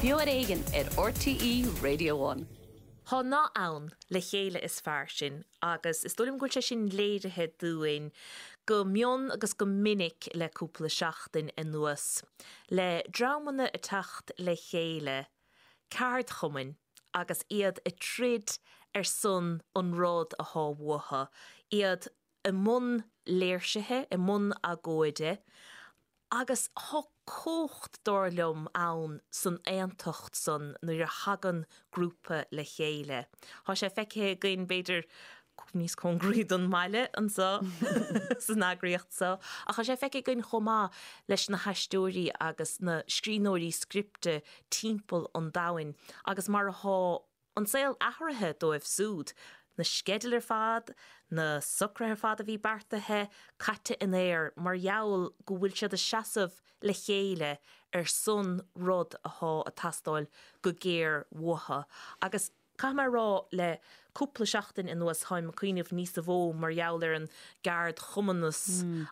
Beo ar Éigean ar RTÉ Radio One. Tá nath ann, le chéile is fearr sinn, agus is dóigh liom go bhfuil sé sin léirithe dúinn go mion agus go minic le cúpla seachtain anuas, le dreamanna ag teacht le chéile, ceardchumainn, agus iad ag troid ar son an rud athá uathu, iad i mbun léirsithe, i mbun agóide, agus thá cumhacht, dar liom, ann san aontacht san nuair a thagann grúpa le chéile. Thá sé feicthe againn, b'fhéidir, níos cóngaraí don mbaile anso san eagraíocht so, ach thá sé feicthe againn chomh maith leis na haisteoirí agus na scríbhneoirí scripte timpeall an domhain agus mar athá an saol athraithe dóibh súd, na sceidil ar fad, na socruithe ar fad a bhí beartaithe, caite in aer mar gheall go bhfuil siad ag seasamh le chéile ar son rud athá ag teastáil go géar uathu. Agus caithfidh mé a rá, le cúpla seachtain anuas táim ag cuimhneamh níosa mhó mar gheall ar an gceardchumannas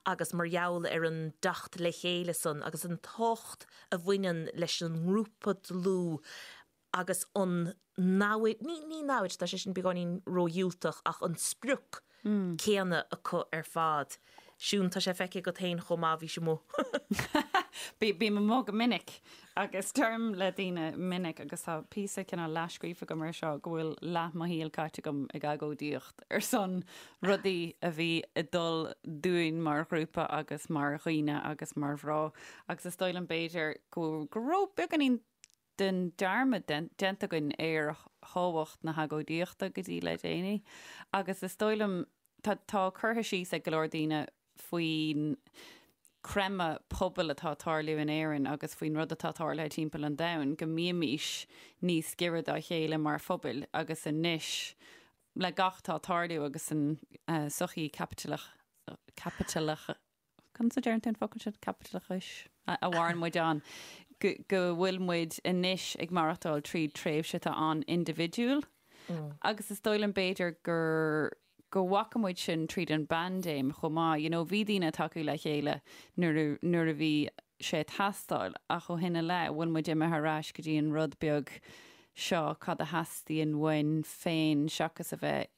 agus mar gheall ar an dteacht le chéile san agus an tábhacht a bhaineann leis an ngrúpa dlúth agus an namhaid, ní, ní namhaid, tá sé sin beagáinín ródhiúltach, ach an sprioc céanna acu ar fad. Siún, tá sé feicthe agat féin chomh maith, bhís amuigh. Bím amuigh go minic agus deirim le daoine minic agus tá píosa cineál leathscríofa agam ar seo go bhfuil leath mo shaoil caite agam ag agóidíocht ar son rudaí a bhí ag dul dúinn mar ghrúpa agus mar dhaoine agus mar mhná agus is dóigh liom b'fhéidir go go raibh beagáinín den dearmad déanta againn ar thábhacht na hagóidíochta go dtí le déanaí agus is dóigh liom, tá, tá curtha síos ag go leor daoine faoin creimeadh pobail atá ag tarlú in Éirinn agus faoin rud atá tarlaithe timpeall an domhain, go mbímís níos giorra dá chéile mar phobail agus anois le gach atá ag tarlú agus an sochaí caipitileach, caipitileach, Conas a deireann tú an focal sin? Caipitileachais a mhaireann muid ann, go bhfuil muid anois ag maireachtáil tríd tréimhse atá an-indibhidiúil agus is dóigh liom b'fhéidir gur go bhfaca muid sin tríd an bpaindéim chomh maith. You know, bhí daoine ag tacú le chéile nuair a nuair a bhí sé ag teastáil ach ó shin i leith bhfuil muid imithe ar ais go dtí an rud beag seo cad a theastaíonn uainn féin seachas a bheith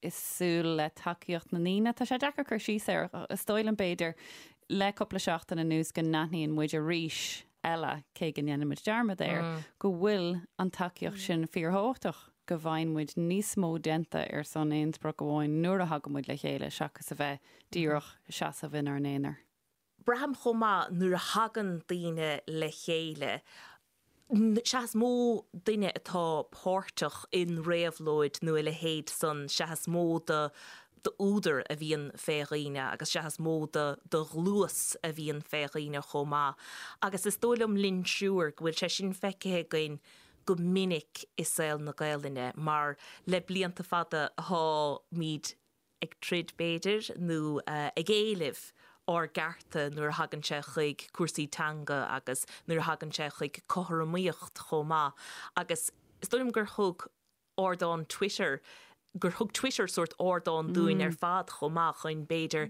ag súil le tacaíocht na ndaoine. Tá sé deacair cur síos air. Is dóigh liom, b'fhéidir, le cúpla seachtain anuas go n-aithníonn muid arís eile, cé go ndéanann muid dearmad air, go bhfuil an tacaíocht sin fíorthábhachtach, go bhfaigheann muid níos mó déanta ar son aon sprioc amháin nuair a thagann muid le chéile seachas a bheith díreach ag seasamh inár n-aonar. Braithim chomh maith nuair a thagann daoine le chéile, sea is mó duine atá páirteach in réabhlóid nó a leithéid san, sea is mó d'údar a bhíonn fé dhaoine agus sea is mó de ghluais a bhíonn fé dhaoine chomh maith. Agus is dóigh liom linn triúr go bhfuil sé sin feicthe againn go minic i saol na Gaelainne mar le blianta fada tháimid ag troid b'fhéidir, nó ag éileamh ár gcearta nuair a thagann sé chuig cúrsaí teanga agus nuair a thagann sé chuig cothromaíocht chomh maith. Agus is dóigh liom gur thug ardán Twitter, gur thug Twitter sórt ardán dúinn ar fad chomh maith chun b'fhéidir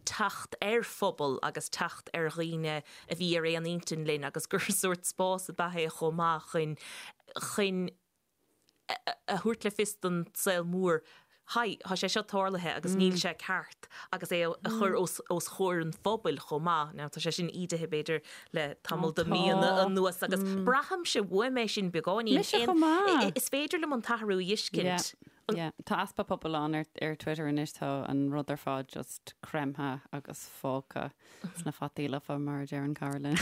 teacht ar phobal agus teacht ar dhaoine a bhí ar aon intinn linn agus gur sórt spás ab ea é chomh maith chun, chun a thabhairt le fios don saol mór, Haigh, tá sé seo tarlaithe agus níl sé ceart agus é a chur os comhair an phobail chomh maith. Now tá sé sin ídithe b'fhéidir le tamall de mhíonna anuas agus braithimse uaim é sin beagáinín. Mise chomh maith. Is féidir liom an t-athrú a fheiscint. Yeah, tá easpa pobail ann ar Twitter anois, tá an rud ar fad just creimthe agus fágtha sna fataí lofa mar a deireann cara linn.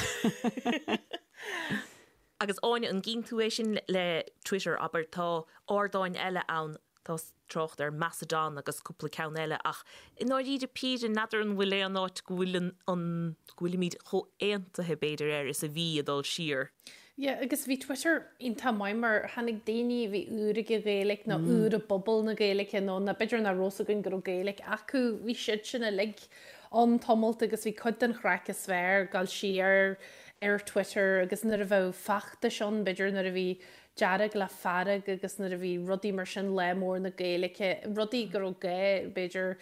Agus Áine, an gcíonn tú é sin le Twitter, abair, tá ardáin eile ann, tá trácht ar Mastodon agus cúpla ceann eile ach i ndáiríre píre, n'fheadar an bhfuil aon áit go bhfuil an, an, go bhfuilimid chomh aontaithe b'fhéidir air is a bhí ag dul siar. Yeah, agus bhí Twitter iontach maith mar tháinig daoine a bhí úr ag an Ghaeilge nó úr i bpobal na Gaeilge nó ná b'fhéidir nach raibh 's againn go raibh Gaeilge acu, bhí siad sin uilig ann tamalt agus bhí cuid den chraic is fearr ag dul siar. ar Twitter agus nuair a bheadh feachtais ann, b'fhéidir nuair a bhí Dearg le Fearg agus nuair a bhí rudaí mar sin, Lá Mór na Gaeilge, rudaí go raibh gá, b'fhéidir,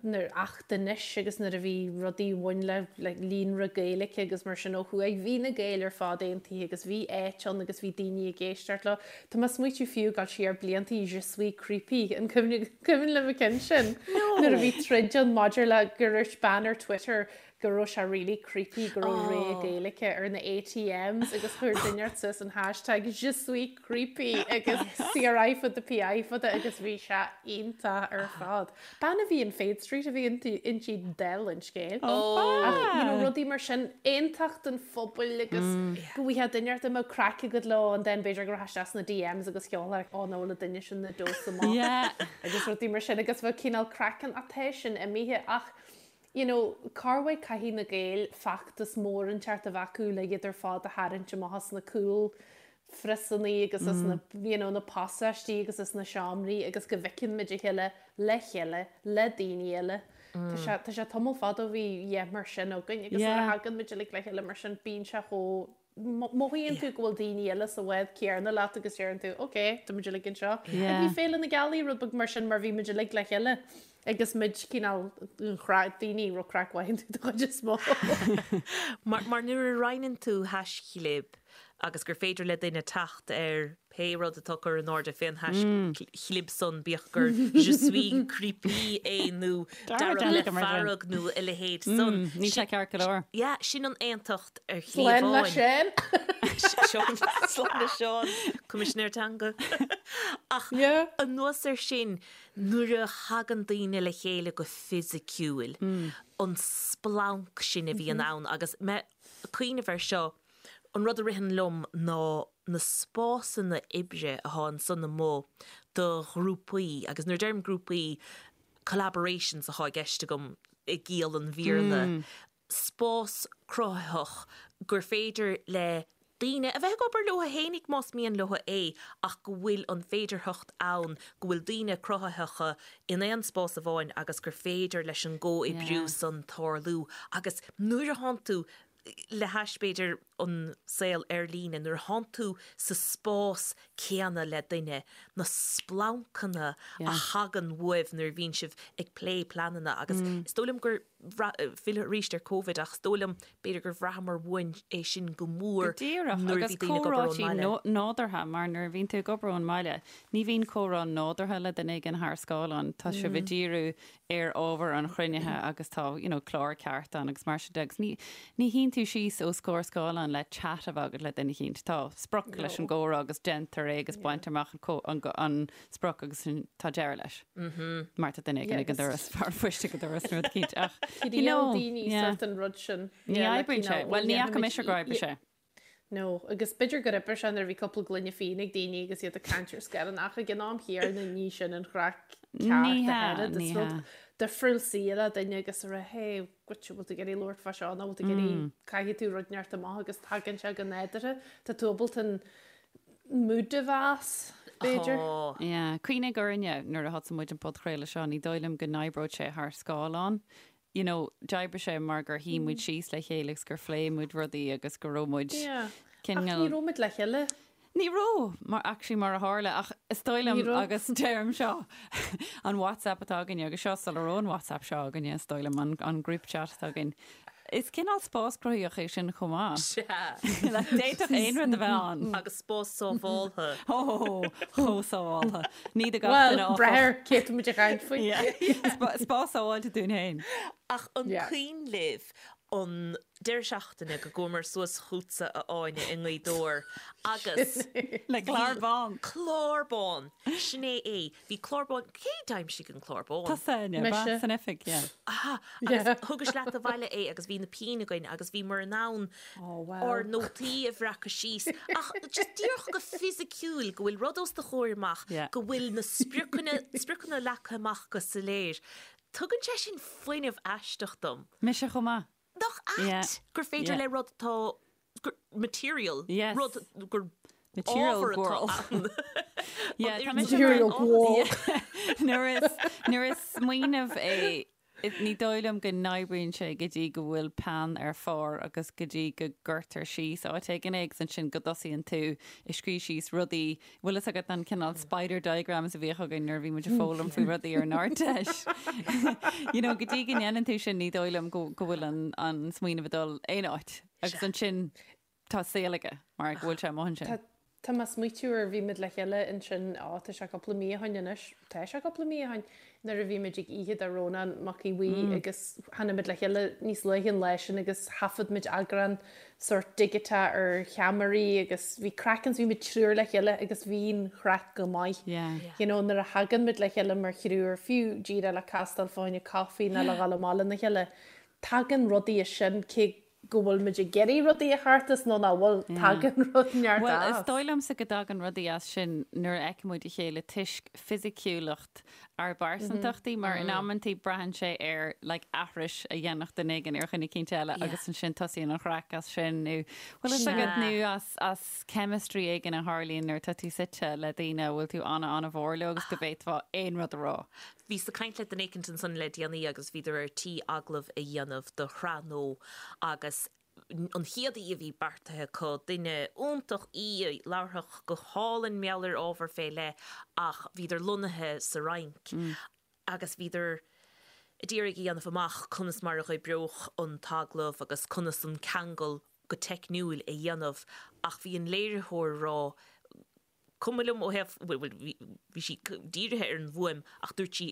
nuair Acht Anois agus nuair a bhí rudaí a bhain le le líonra Gaeilge agus mar sin ó thuaidh, bhí na Gaeil ar fad aontaithe agus bhí áit ann agus bhí daoine ag éisteacht leo. Tá mé ag smaoitiú fiú ag dul siar blianta, Je suis creepy, an cuimhin libh an ceann sin? Nuair a bhí troid ann maidir le gur dhúirt bean ar Twitter go raibh sé really creepy go raibh rogha Gaeilge ar na ATMs agus chuir duine inteacht suas an hashtag je suis creepy agus CRI fada PI fada agus bhí sé iontach ar fad. Bean a bhí in Fade Street a bhí inti dála an scéil. Ach you know rudaí mar sin, aontacht an phobail agus go bhfaighfeá duine inteacht a mbeadh craic agat leo and then b'fhéidir go rachfá isteach sna DMs agus sheolfá oh no le duine sin na dós amach agus rudaí mar sin agus bheadh cineál craic ann ach tá sin imithe ach you know, corruair caithfidh na Gaeil feachtas mór inteacht a bheith acu le iad ar fad a tharraingt amach as na cúl phriosannaí agus as na, you know, na pasáistí agus as na seomraí agus go bhfeiceann muid a chéile le chéile, le daoine eile. Tá sé, tá sé tamall fada ó bhí lá mar sin againn agus nuair a thagann muid uilig le chéile mar sin bíonn sé chomh Mothaíonn tú go bhfuil daoine eile sa bhád céanna leat agus deireann tú, ok, tá muid uilig anseo. Yeah. Bhí Féile na Gealaí rud beag mar sin mar bhí muid uilig le chéile agus muid cineál daoine raibh craic mhaith iontu den chuid is mó. Mar, mar nuair a roinneann tú haischlib agus gur féidir le duine teacht ar pé rud atá curtha in airde fén haischlib san, bíodh gur je suis creepy é nó dearg le fearg nó a leithéid san. Níl sé ceart go leor. Yeah, sin an aontacht ar shlí amháin. Slán le Seán. Seán, slán le Seán, Coimisinéir Teanga. Ach anuas air sin, nuair a thagann daoine le chéile go fisiciúil, an splanc sin a bhíonn ann agus mé ag cuimhneamh air seo, An rud a ritheann liom ná na spásanna oibre atá ansan amuigh do ghrúpaí, agus nuair a deirim grúpaí, collaborations atá i gceist agam i gciall an Bhéarla, spás cruthaitheach gur féidir le daoine a bheith ag obair leo fhéinig más mian leo é ach go bhfuil an féidearthacht ann go bhfuil daoine cruthaitheacha in aon spás amháin agus gur féidir leis an gcomhoibriú san tarlú agus nuair a thánn tú le hais, b'fhéidir, an saol ar líne, nuair a thánn tú sa spás céanna le duine, na splancanna a thagann uaibh nuair a bhíonn sibh ag plé pleananna agus is dóigh liom gur, filleadh arís ar Covid, ach is dóigh liom, b'fhéidir gur bhraitheamar uainn é sin go mór Go díreach, nuair a agus bhí daoine ag obair ón comhráití mbaile. nádúrtha, mar nuair a bhíonn tú ag obair ón mbaile, ní bhíonn comhrá nádúrtha le duine éigin thar scáileán, tá sibh ag díriú ar ábhar an chruinnithe agus tá you know clár ceart ann agus mar sin de agus ní ní shuíonn tú síos os comhair scáileáin le chat a bheith agat le duine eicínt. Tá sprioc leis an gcomhrá agus déantar é agus baintear amach an an an sprioc agus sin tá deireadh leis. Mar tá duine éigin ag an doras, fear poist ag an doras nó rud eicínt ach you know daoine yeah. sort an rud sin. Ní oibríonn sé. Bhuel ní fhaca mise gur oibrigh sé. No, agus b'fhéidir gur oibrigh sé nuair a bhí cúpla gloine fíona ag daoine agus iad ag caint ar scáileán ach ag an am chéanna ní sin an chraic ceart Ní a hea, oiread. ní Is rud hea. difriúil suí le duine agus a rá hey, goitse, bhfuil tú ag iarraidh labhairt fá seo nó bhfuil tú ag iarraidh caithfidh tú rud inteacht amach agus tagann sé go nádúrtha. Tá tú ábalta an mood a mheas, b'fhéidir. Tá. Yeah. Cuimhnigh orainne nuair a thosaigh muid an podchraoladh seo, ní dóigh liom go n-oibreodh sé thar scáileán. you know, d'oibrigh sé mar gur shuigh muid síos le chéile agus gur phléigh muid rudaí agus go raibh muid Yeah. cineál. Ach ní raibh muid le chéile. Ní raibh, mar, actually mar a tharla, ach is dóigh liom Ní raibh. agus deirim seo, an WhatsApp atá againne agus seo sula raibh an WhatsApp seo againne, is dóigh liom, an, an group chat atá againn. Is cineál spás cruthaitheach é sin chomh maith. Sea. Like, d'fhéadfadh aon rud a bheith ann. Agus spás sábháltha. Ó, chomh sábháltha. Ní do gach Bhuel, duine, áfach. brath ar cé tá muid ag caint faoi. Yeah. Spás sábháilte dúinn féin. Ach an Yeah. cuimhin libh an deireadh seachtaine go gcuamar suas chugatsa a Áine i nGaoth Dobhair agus Le clár bán. Clár bán! Sin é é. Bhí clár bán, cé d'aimsigh an clár bán? Tusa, Áine, Mise. ba san oifig, yeah. Aha, agus thugais leat abhaile é agus bhí na pinn againn agus bhíomar in ann Oh, wow. ár nótaí a bhreacadh síos ach just díreach go fisiciúil go bhfuil rud os do chomhair amach, Yeah. go bhfuil na spriocanna, spriocanna leagtha amach go soiléir. Tugann sé sin fuinneamh aisteach dom. Mise chomh maith. Nach ait Yeah. gur féidir Yeah. le rud atá gur material, Yes. rud gur Material ábhar atá world. ann. Yeah, An tá oiread mise sin Material áthas. world. Nuair is, nuair is smaoineamh é. Ní dóigh liom go n-oibríonn sé go dtí go bhfuil peann ar phár agus go dtí go gcuirtear síos áit éigin é agus ansin go dtosaíonn tú ag scríobh síos rudaí, bhfuil fhios agat an cineál spider diagrams a bhíodh againn nuair a bhí muid ag foghlaim faoi rudaí ar an Ardteist. You know, go dtí go ndéanann tú sin ní dóigh liom go go bhfuil an an smaoineamh ag dul aon áit agus ansin tá saol aige mar go bhfuil sé amuigh ansin. Tá Tá mé ag smaoitiú ar bhí muid le chéile ansin, á, tá sé cúpla mí ó shoin anois, tá sé cúpla mí ó shoin, nuair a bhí muid ag oíche do Rónán Mac Aodha Bhuí agus tháinig muid le chéile níos luaithe an lá sin agus thaifead muid eagrán sórt digiteach ar cheamaraí agus bhí craic ann, bhí muid triúr le chéile agus bhí an chraic go maith. You know, nuair a thagann muid le chéile mar thriúr, fiú díreach le castáil fá choinne caife nó le dhul amach lena chéile, tagann rudaí as sin cé go bhfuil muid ag iarraidh rudaí a theacht as nó nach bhfuil, tagann rud neart Bhuel, is as. dóigh liomsa go dtagann rudaí as sin nuair a fheiceann muid a chéile toisc fisiciúlacht ár bpearsantachtaí mar in amantaí braitheann sé ar like aithris a dhéanfadh duine éigin ar dhuine eicínt eile agus ansin tosaíonn an chraic as sin nó bhfuil fhios agat nó as as chemistry éigin a tharlaíonn nuair atá tú suite le daoine a bhfuil tú ana-ana-mhór leo agus go bhféadfá aon rud a rá. Bhíos ag caint le duine éicint ansan le déanaí agus bhíodar ar tí agallamh a dhéanamh do shraith nua agus an chéad aoi a bhí beartaithe acu, duine iontach í a labharfadh go hálainn mar gheall ar ábhar fé leith ach bhíodar lonnaithe sa Fhrainc agus bhíodar a d'iarraidh a dhéanamh amach conas mar a dh'oibreodh an t-agallamh agus conas an ceangal go teicniúil a dhéanamh ach bhí an léiritheoir ag rá cuma liom ó thaobh, bhuel, bhí sí dírithe ar an bhfuaim ach dúirt sí,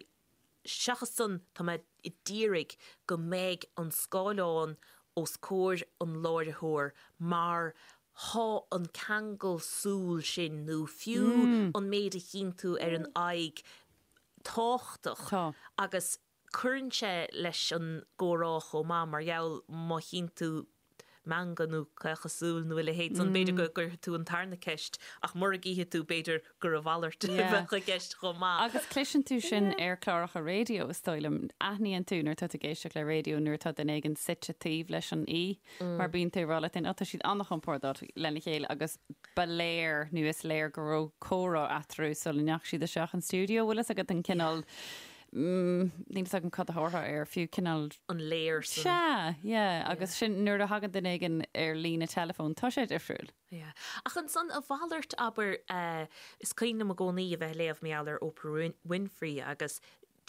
seachas san, tá mé a d'iarraidh go mbeidh an scáileán os comhair an láithreora mar thá an ceangal súl sin nó fiú an méid a chíonn tú ar an aghaidh tábhachtach agus Cuireann sé leis an gcomhrá chomh maith mar gheall má chíonn tú meangadh nó caochadh súl nó a leithéid san, b'fhéidir go gcuirfidh tú an tarna ceist ach mura gcífidh tú b'fhéidir gur a mhalairt a bheadh i gceist chomh maith. Agus cloiseann tú sin ar chláracha raidió, is dóigh liom. Aithníonn tú nuair atá tú ag éisteacht le raidió nuair atá duine éigin suite taobh leis an aoi mar bíonn tú ag rá leat féin, 'Ó, tá siad an-chompordach lena chéile' agus ba léir nó is léir go raibh comhrá eatarthu sula ndeachaigh siad isteach an stiúideo. Bhfuil fhios agat an cineál Níl fhios agam cad a thabharfá air, fiú cineál. an léir san. Sea, yeah, agus sin nuair a thagann duine éigin ar líne teileafóin, tá sé difriúil. Yeah. Ach ansan a mhalairt, abair, is cuimhin liom i gcónaí a bheith ag léamh mar gheall ar Oprah Winfrey agus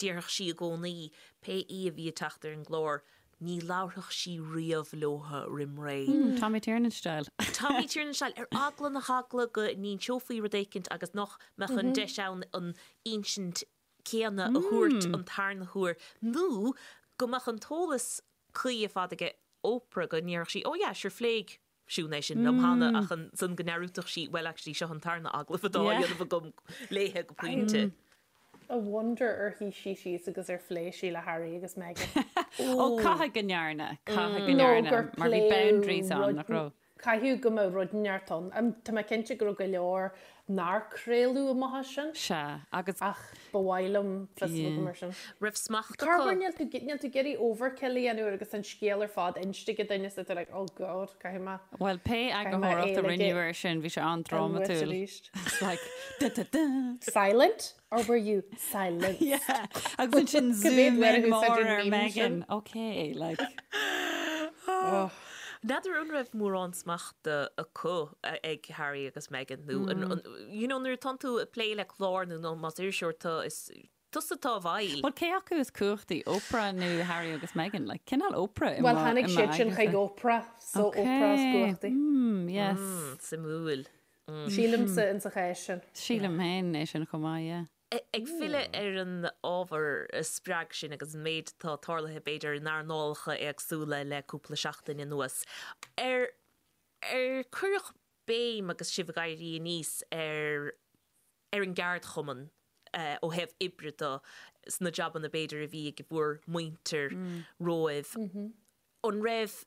déarfadh sí i gcónaí, pé aoi a bhí ag teacht ar an gclár, ní labharfadh sí riamh leotha roim ré. Tommy Tiernan style. Tommy Tiernan style, ar eagla na heagla go n-inseofaí rud éicint agus nach mbeadh an deis ann an insint céanna a thabhairt an tarna huair nó go mbeadh an t-eolas cuí ar fad aige Oprah go ndéarfadh sí oh yeah sure phléigh Siún é sin liom cheana ach ansan go ndearúdfadh sí well actually seo an tarna agallamh atá á dhéanamh agam léithe go pointe. I wonder ar shuigh sí síos agus ar phléigh sí le Harry agus Meghan. Ó caithfidh go ndearna, caithfidh go ndearna mar bhí boundaries ann nach raibh? Caithfidh go mbeadh rud inteacht ann. Tá mé cinnte go raibh go leor nár craoladh amach as sin. Sea, agus. Ach ba mhaith liom fios a bheith agam ar sin. Raibh smacht acu. Corruair níl tú níl tú ag iarraidh overkill a dhéanamh agus an scéal ar fad inste ag duine is tú like oh god caithfidh mé Bhuel, pé caithfidh mé eagarthóireacht é a a rinneadh air sin, bhí sé an-drámatúil. arís. It's like da da da. Silent or were you silenced? Yeah. Agus ansin Go mbeidh zoom mé in a mór úsáid an ar meme Meghan. sin. Okay, like. Oh. N'fheadar an raibh mórán smachta acu ag Harry agus Meghan nó an, you know, nuair atánn tú ag plé le clár nó nó más iriseoir tú is tusa atá i bhfeighil. Bhuel, cé acu is cumhachtaí, Oprah nó Harry agus Meghan? Like, cineál Oprah i Bhuel, mo, tháinig i mo siad sin aigne-sa. chuig Oprah, so Oprah is Okay. cumhachtaí. Mm, yes. Mm, suimiúil. Sílimse insa chás sin. Sílim féin é sin chomh maith, yeah. Ag filleadh ar an ábhar a spreag sinn agus an méid atá tarlaithe b'fhéidir in earnálacha éagsúla le cúpla seachtain anuas, ar ar cuireadh béim agus sibh ag éirí aníos ar ar an gceardchumann ó thaobh oibre de sna jabanna b'fhéidir a bhí ag bhur muintir romhaibh? An raibh,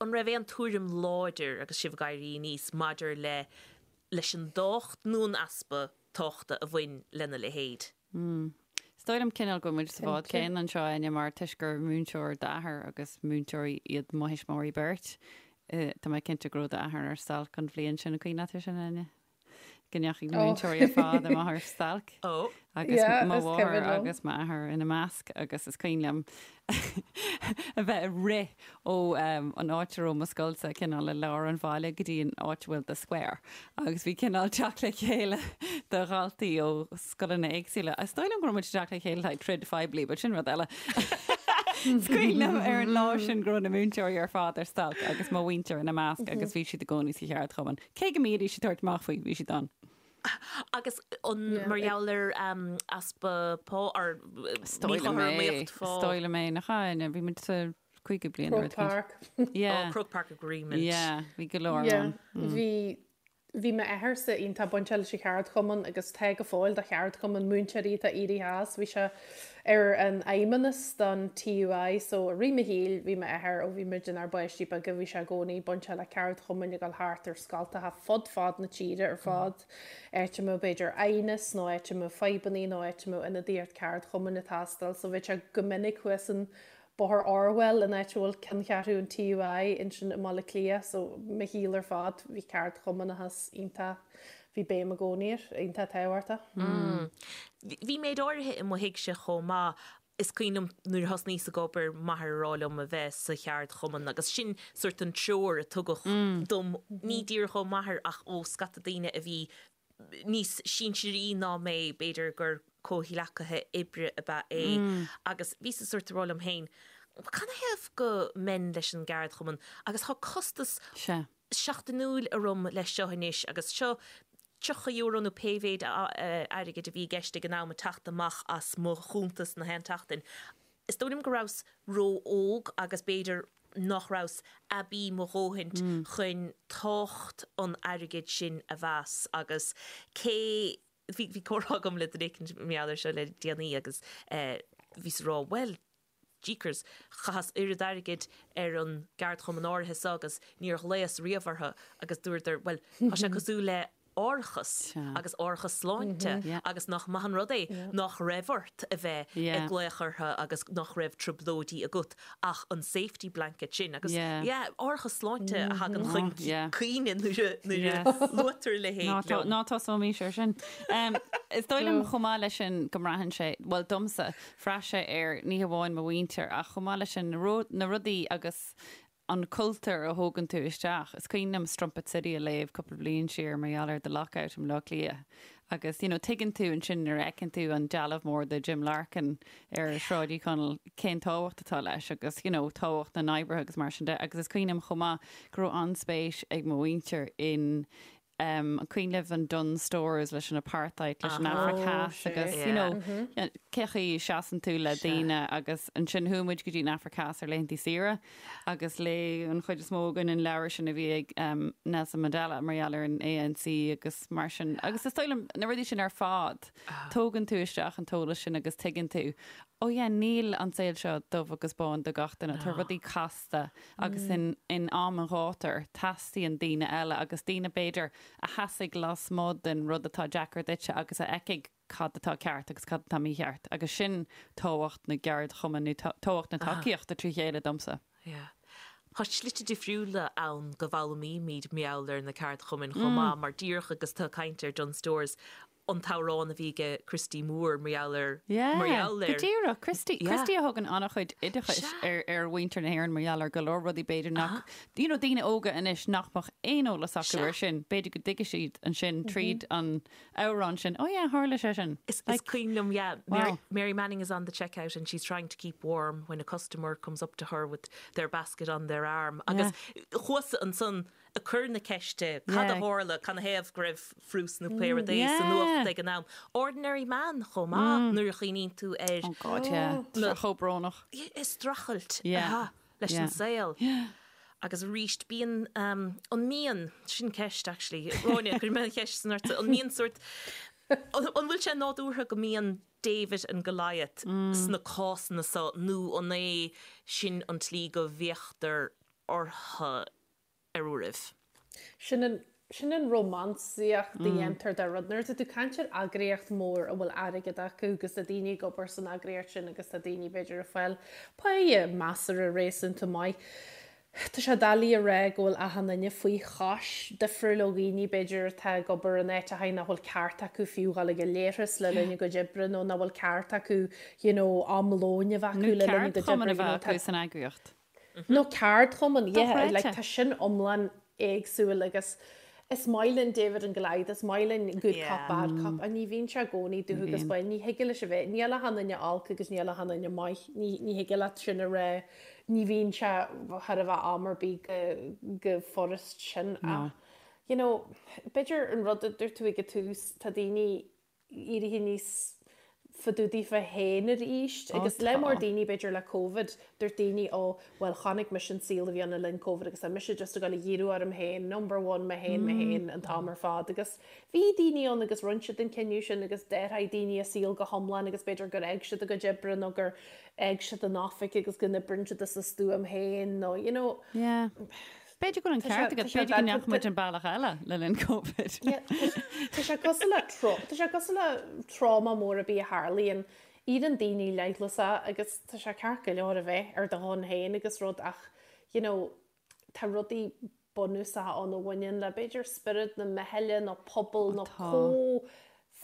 an raibh aon tuairim láidir agus sibh ag éirí aníos maidir le, leis an dtábhacht nó an easpa tábhachta a bhain lena leithéid? Is dóigh liom cineál go bhfuil muid sa bhád céanna anseo, Áine, mar toisc gur múinteoir d'athair agus múinteoirí iad mo thuismitheoirí beirt, tá mé cinnte go raibh d'athair ar stailc an bhliain sin, an cuimhin leat é sin, Áine? Go ndeachaigh na múinteoirí ar fad amach ar stailc agus mo mháthair agus m'athair ina measc agus is cuimhin liom a bheith ag rith ó an áit a raibh mo scoilsa cineál i lár an bhaile go dtí an áit a bhfuil The Square agus bhí cineál teacht le chéile de dhaltaí ó scoileanna éagsúla. Is dóigh liom go raibh muid ag teacht le chéile le haghaidh troid phoiblí, but sin rud eile. Is cuimhin liom ar an lá sin go raibh na múinteoirí ar fad ar stailc agus mo mhuintir ina measc agus bhí siad i gcónaí sa cheardchumann. Cé go mbídís ag tabhairt amach faoi, bhí siad ann. Agus an mar gheall ar easpa pá or míchothromaíocht phá? Is dóigh liom é, nach ea? Bhí muid sa 50 bliain nó rud Croke Park. Yeah. Oh, Croke Park Agreement. Yeah, bhí go leor ann. Bhí bhí m'athairse iontach bainteach leis an cheardchumann agus tá go fóill do cheardchumann múinteoirí atá éirithe as. Bhí sé ar an fheidhmeannas don TUI so i rith mo shaoil bhí m'athair ó bhí muid inár bpáistí beaga bhí sé i gcónaí bainteach le ceardchumainn ag dul thart ar scoltacha fud fad na tíre ar fad, áit a mbeadh b'fhéidir aighneas nó áit a mbeadh fadhbannaí nó áit a mbeadh ionadaíocht ceardchumainn ag teastáil so bheadh sé go minic thuas in Bóthar Orwell an áit a bhfuil ceanncheathrú an TUI ansin i mBaile Átha Cliath so mo shaol ar fad bhí ceardchumannachas iontach bhí béim i gcónaí air, iontach tábhachtach. Bhí méid áirithe i mo thigse chomh maith. Is cuimhin liom nuair a thosnaíos ag obair, m'athair ag rá liom a bheith sa cheardchumann agus sin sórt an treoir a tugadh dom, ní díreach ó m'athair ach ó scata daoine a bhí níos sinsearaí ná mé, b'fhéidir gur comhghleacaithe oibre ab ea é agus bhíos sórt ag rá liom féin, canathaobh go mbeinn leis an gceardchumann agus tá costas seachtainiúil orm leis seo anois agus seo €30 nó pé mhéid airgid a bhí i gceist ag an am ag teacht amach as mo chuntas na haon tseachtain. Is dóigh liom go rabhas ró-óg agus b'fhéidir nach rabhas aibí mo dhóthaint chun tábhacht an airgid sin a mheas agus cé bhí bhí comhrá agam le duine éicint mar gheall air seo le déanaí agus bhíos ag rá bhuel jeekers, chaitheas oiread airgid ar an gceardchumann áirithe seo agus níor ghlaos riamh orthu agus dúradar, bhuel, tá sé cosúil le árachas agus árachas sláinte agus nach maith an rud é nach raibh ort a bheith ag glaoch orthu agus nach raibh trioblóidí agat ach an safety blanket sin agus yeah, árachas sláinte a thagann chun cuimhne nuair a luaitear a leithéid liom. Ná tosóimís ar sin. Is dóigh liom chomh maith leis sin go mbraitheann sé, bhuel domsa, bhraith sé ar ní hamháin mo mhuintir ach chomh maith leis sin na rudaí agus an cultúr a thógann tú isteach. Is cuimhin liom Strumpet City a léamh cúpla bliain siar mar gheall ar The Lockout i mBleá Cliath agus you know tuigeann tú ansin nuair a fheiceann tú an dealbh mór de Jim Larkin ar Shráid Uí Chonaill cén tábhacht atá leis agus you know tábhacht na n-oibrithe agus mar sin de agus is cuimhin liom chomh maith go raibh an-spéis ag mo mhuintir in An cuimhin libh an Dunnes Stores leis an apartheid, leis an Afraic Theas agus you know cé chaoi a seasann tú le daoine agus ansin chuaigh muid go dtí an Afraic Theas ar laethanta saoire agus léigh an chuid is mó againn an leabhar sin a bhí ag Nelson Mandela mar gheall ar an ANC agus mar sin agus is dóigh liom na rudaí sin ar fad tógann tú isteach an t-eolas sin agus tuigeann tú oh yeah níl an saol seo dubh agus bán do gach duine, tá rudaí casta agus in in am an ghátair teastaíonn daoine eile agus daoine b'fhéidir a sheasfaidh lasmuigh den rud atá deacair duitse agus a fheicfidh cad atá ceart agus cad atá mícheart agus sin tábhacht na gceardchumann nó tábhacht na tacaíochta trí chéile domsa. Yeah. Tá slite difriúla ann go bhfoghlaimímid mar gheall ar na ceardchumainn chomh maith mar díreach agus tú ag caint ar Dunnes Stores an t-amhrán a bhí aige Christy Moore mar gheall ar, mar gheall ar. Go díreach, Christy, Christy a thugann an-chuid oideachais ar, ar mhuintir na hÉireann mar gheall ar go leor rudaí b'fhéidir nach, you know, daoine óga anois nach mbeadh aon eolas acu ar sin, b'fhéidir go dtuigfidh siad ansin tríd an amhrán sin, oh yeah, tharla sé sin. Is, is cuimhin liom, yeah, Mary, Mary Manning is on the checkout and she's trying to keep warm when a customer comes up to her with their basket on their arm. Agus chuas ansan ag cur na ceiste, cad a tharla, canathaobh go raibh frús nó pé rud é sa nuacht ag an am. Ordinary Man chomh maith nuair a chuimhníonn tú ar. Oh God, yeah. Tá sé chomh brónach. Streachailt leis an saol. Agus arís, bíonn, an mbíonn, sin ceist actually, Gráinne, cuirfidh mé an cheist san ortsa, an mbíonn sórt, an bhfuil sé nádúrtha go mbíonn David and Goliath sna cásanna seo nó an é sin an tslí go bhféachtar orthu? ar uairibh. Sin an, sin an rómánsaíocht a dhéantar de rud. Nuair atá tú ag caint ar eagraíocht mhór a bhfuil airgead acu agus tá daoine ag obair san eagraíocht sin agus tá daoine b'fhéidir ag fáil páighe measartha réasúnta maith. Tá sé doiligh a rá go bhfuil achan duine faoi chois, difriúil ó dhaoine b'fhéidir atá ag obair in áiteachaí nach bhfuil ceart acu fiú dhul ag an leithreas le linn a gcuid oibre nó nach bhfuil ceart acu you know am lóin a bheith acu le linn a gcuid oibre you know tá san eagraíocht. Nó ceardchumann, yeah, like tá sin iomlán éagsúil agus is maith linn David and Goliath, is maith linn good cop, bad cop, ach ní bhíonn sé i gcónaí dubh agus bán, ní thig leis a bheith, níl achan duine olc agus níl achan duine maith, ní, ní thig leat sin a rá, ní bhíonn sé thar a bheith am ar bith go, go furast sin ach, you know, b'fhéidir an rud a dúirt tú ag an tús, tá daoine, éirithe níos fadúdaí fá féin arís agus le mór daoine b'fhéidir le Covid dúirt daoine ó bhuel chonaic mise an saol a bhí ann le linn Covid agus tá mise just ag dul a dhíriú orm féin, number one mé féin mé féin an t-am ar fad agus bhí daoine ann agus rinne siad an cinneadh sin agus d'athraigh daoine a saol go hiomlán agus b'fhéidir gur fhág siad a gcuid oibre nó gur fhág siad an oifig agus go n-oibríonn siad as a stuaim féin nó you know Yeah. B'fhéidir go bhfuil an ceart agat, b'fhéidir go ndeachaigh muid an bealach eile le linn Covid. Tá sé cosúil le tá sé cosúil le tráma mór ar bith a tharlaíonn, éiríonn daoine leithleasach agus tá sé ceart go leor a bheith ar do shon féin agus rud ach you know tá rudaí bunúsacha ann a bhaineann le b'fhéidir spiorad na meithle nó pobal nó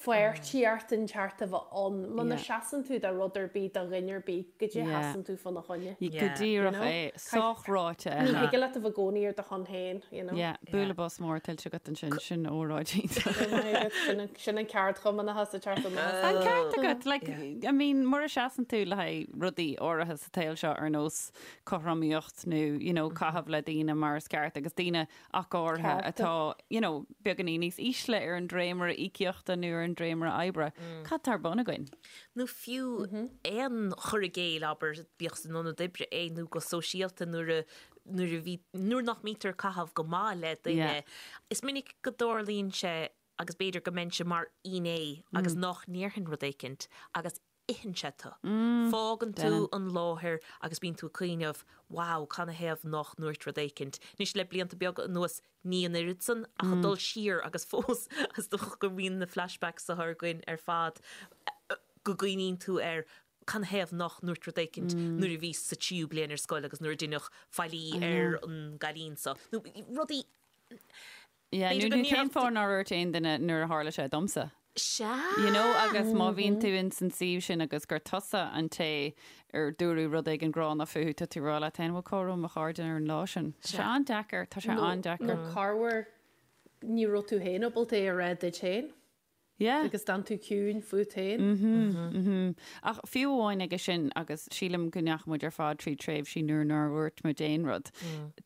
comhpháirtíocht inteacht a bheith ann. Muna seasann tú do rud ar bith, do dhuine ar bith, goidé a sheasann tú fána choinne. Go díreach é. Sách ráite, Ní thig leat a bheith i gcónaí ar do shon féin, you know. Yeah, bualadh bos mór tuillte agat ansin, sin óráid iontach. Sin an ceardchumannachas ag teacht amach. An ceart agat, like, I mean, mura seasann tú le haghaidh rudaí áirithe sa tsaol seo ar nós cothromaíocht nó, you know, caitheamh le daoine mar is ceart agus daoine ach go háirithe atá, you know, beagáinín níos ísle ar an dréimire íocaíochta nó ar an dréimire oibre. Cad tá ar bun againn? Nó fiú aon chur i gcéill, abair, bíodh san ionad oibre é nó go sóisialta nuair a, nuair a bhí, nuair nach mbítear ag caitheamh go maith le duine. Is minic go dtarlaíonn sé agus b'fhéidir go mbeinnse mar fhinné agus nach ndéarfainn rud éicint agus itheann sé tú. Fágann tú an láthair agus bíonn tú ag cuimhneamh, wow, canathaobh nach ndúirt rud éicint. Anois le blianta beaga anuas, ní an oiread san, ach ag dul siar agus fós, is dócha go mbíonn na flashbacks seo againn ar fad, go gcuimhníonn tú ar canathaobh nach ndúirt rud éicint nuair a bhíos sa tríú bliain ar scoil agus nuair a deineadh faillí ar an gcailín seo. Nó rudaí. Yeah, nó nó cén fáth nár dhúirt aon duine nuair a tharla sé domsa? Sea! You know, agus má bhíonn tú in san suíomh sin agus gur tusa an té ar dúradh rud éigin gránna fúthu, tá tú ag rá leat féin, bhuel, cá raibh mo chairde ar an lá sin? Tá sé an-deacair, tá sé an-deacair. Nó corruair ní raibh tú féin ábalta é a rá duit féin. Yeah. Agus d'fhan tú ciúin fút féin. Mhm, mhm. Ach fiú amháin aige sin, agus sílim go ndeachaigh muid ar fad trí tréimhsí nuair nár dhúirt muid aon rud.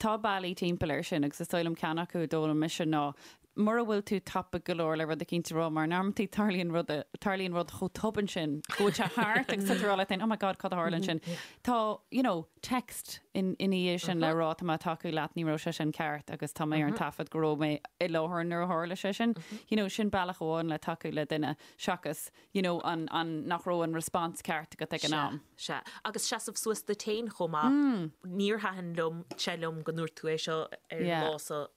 Tá bealaí timpeall air sin agus is dóigh liom ceann acu a d'fhoghlaim mise ná mura bhfuil tú tapaidh go leor le rud eicínt a rá mar in amantaí tarlaíonn rud, tarlaíonn rud chomh tobann sin go bhfuil sé thart agus tá tú ag rá leat féin, oh my God, cad a tharla ansin? Tá, you know, text ina dhiaidh sin le rá tá mé ag tacú leat, ní raibh sé sin ceart agus tá mé ar an taifead go raibh mé i láthair nuair a tharla sé sin. You know, sin bealach amháin le tacú le duine seachas, you know, an, an, nach raibh an response ceart agat ag an am. Sea. Agus seasamh suas duit féin chomh maith. Níor thaitin liom, sé liom go ndúirt tú é seo ar an lá seo,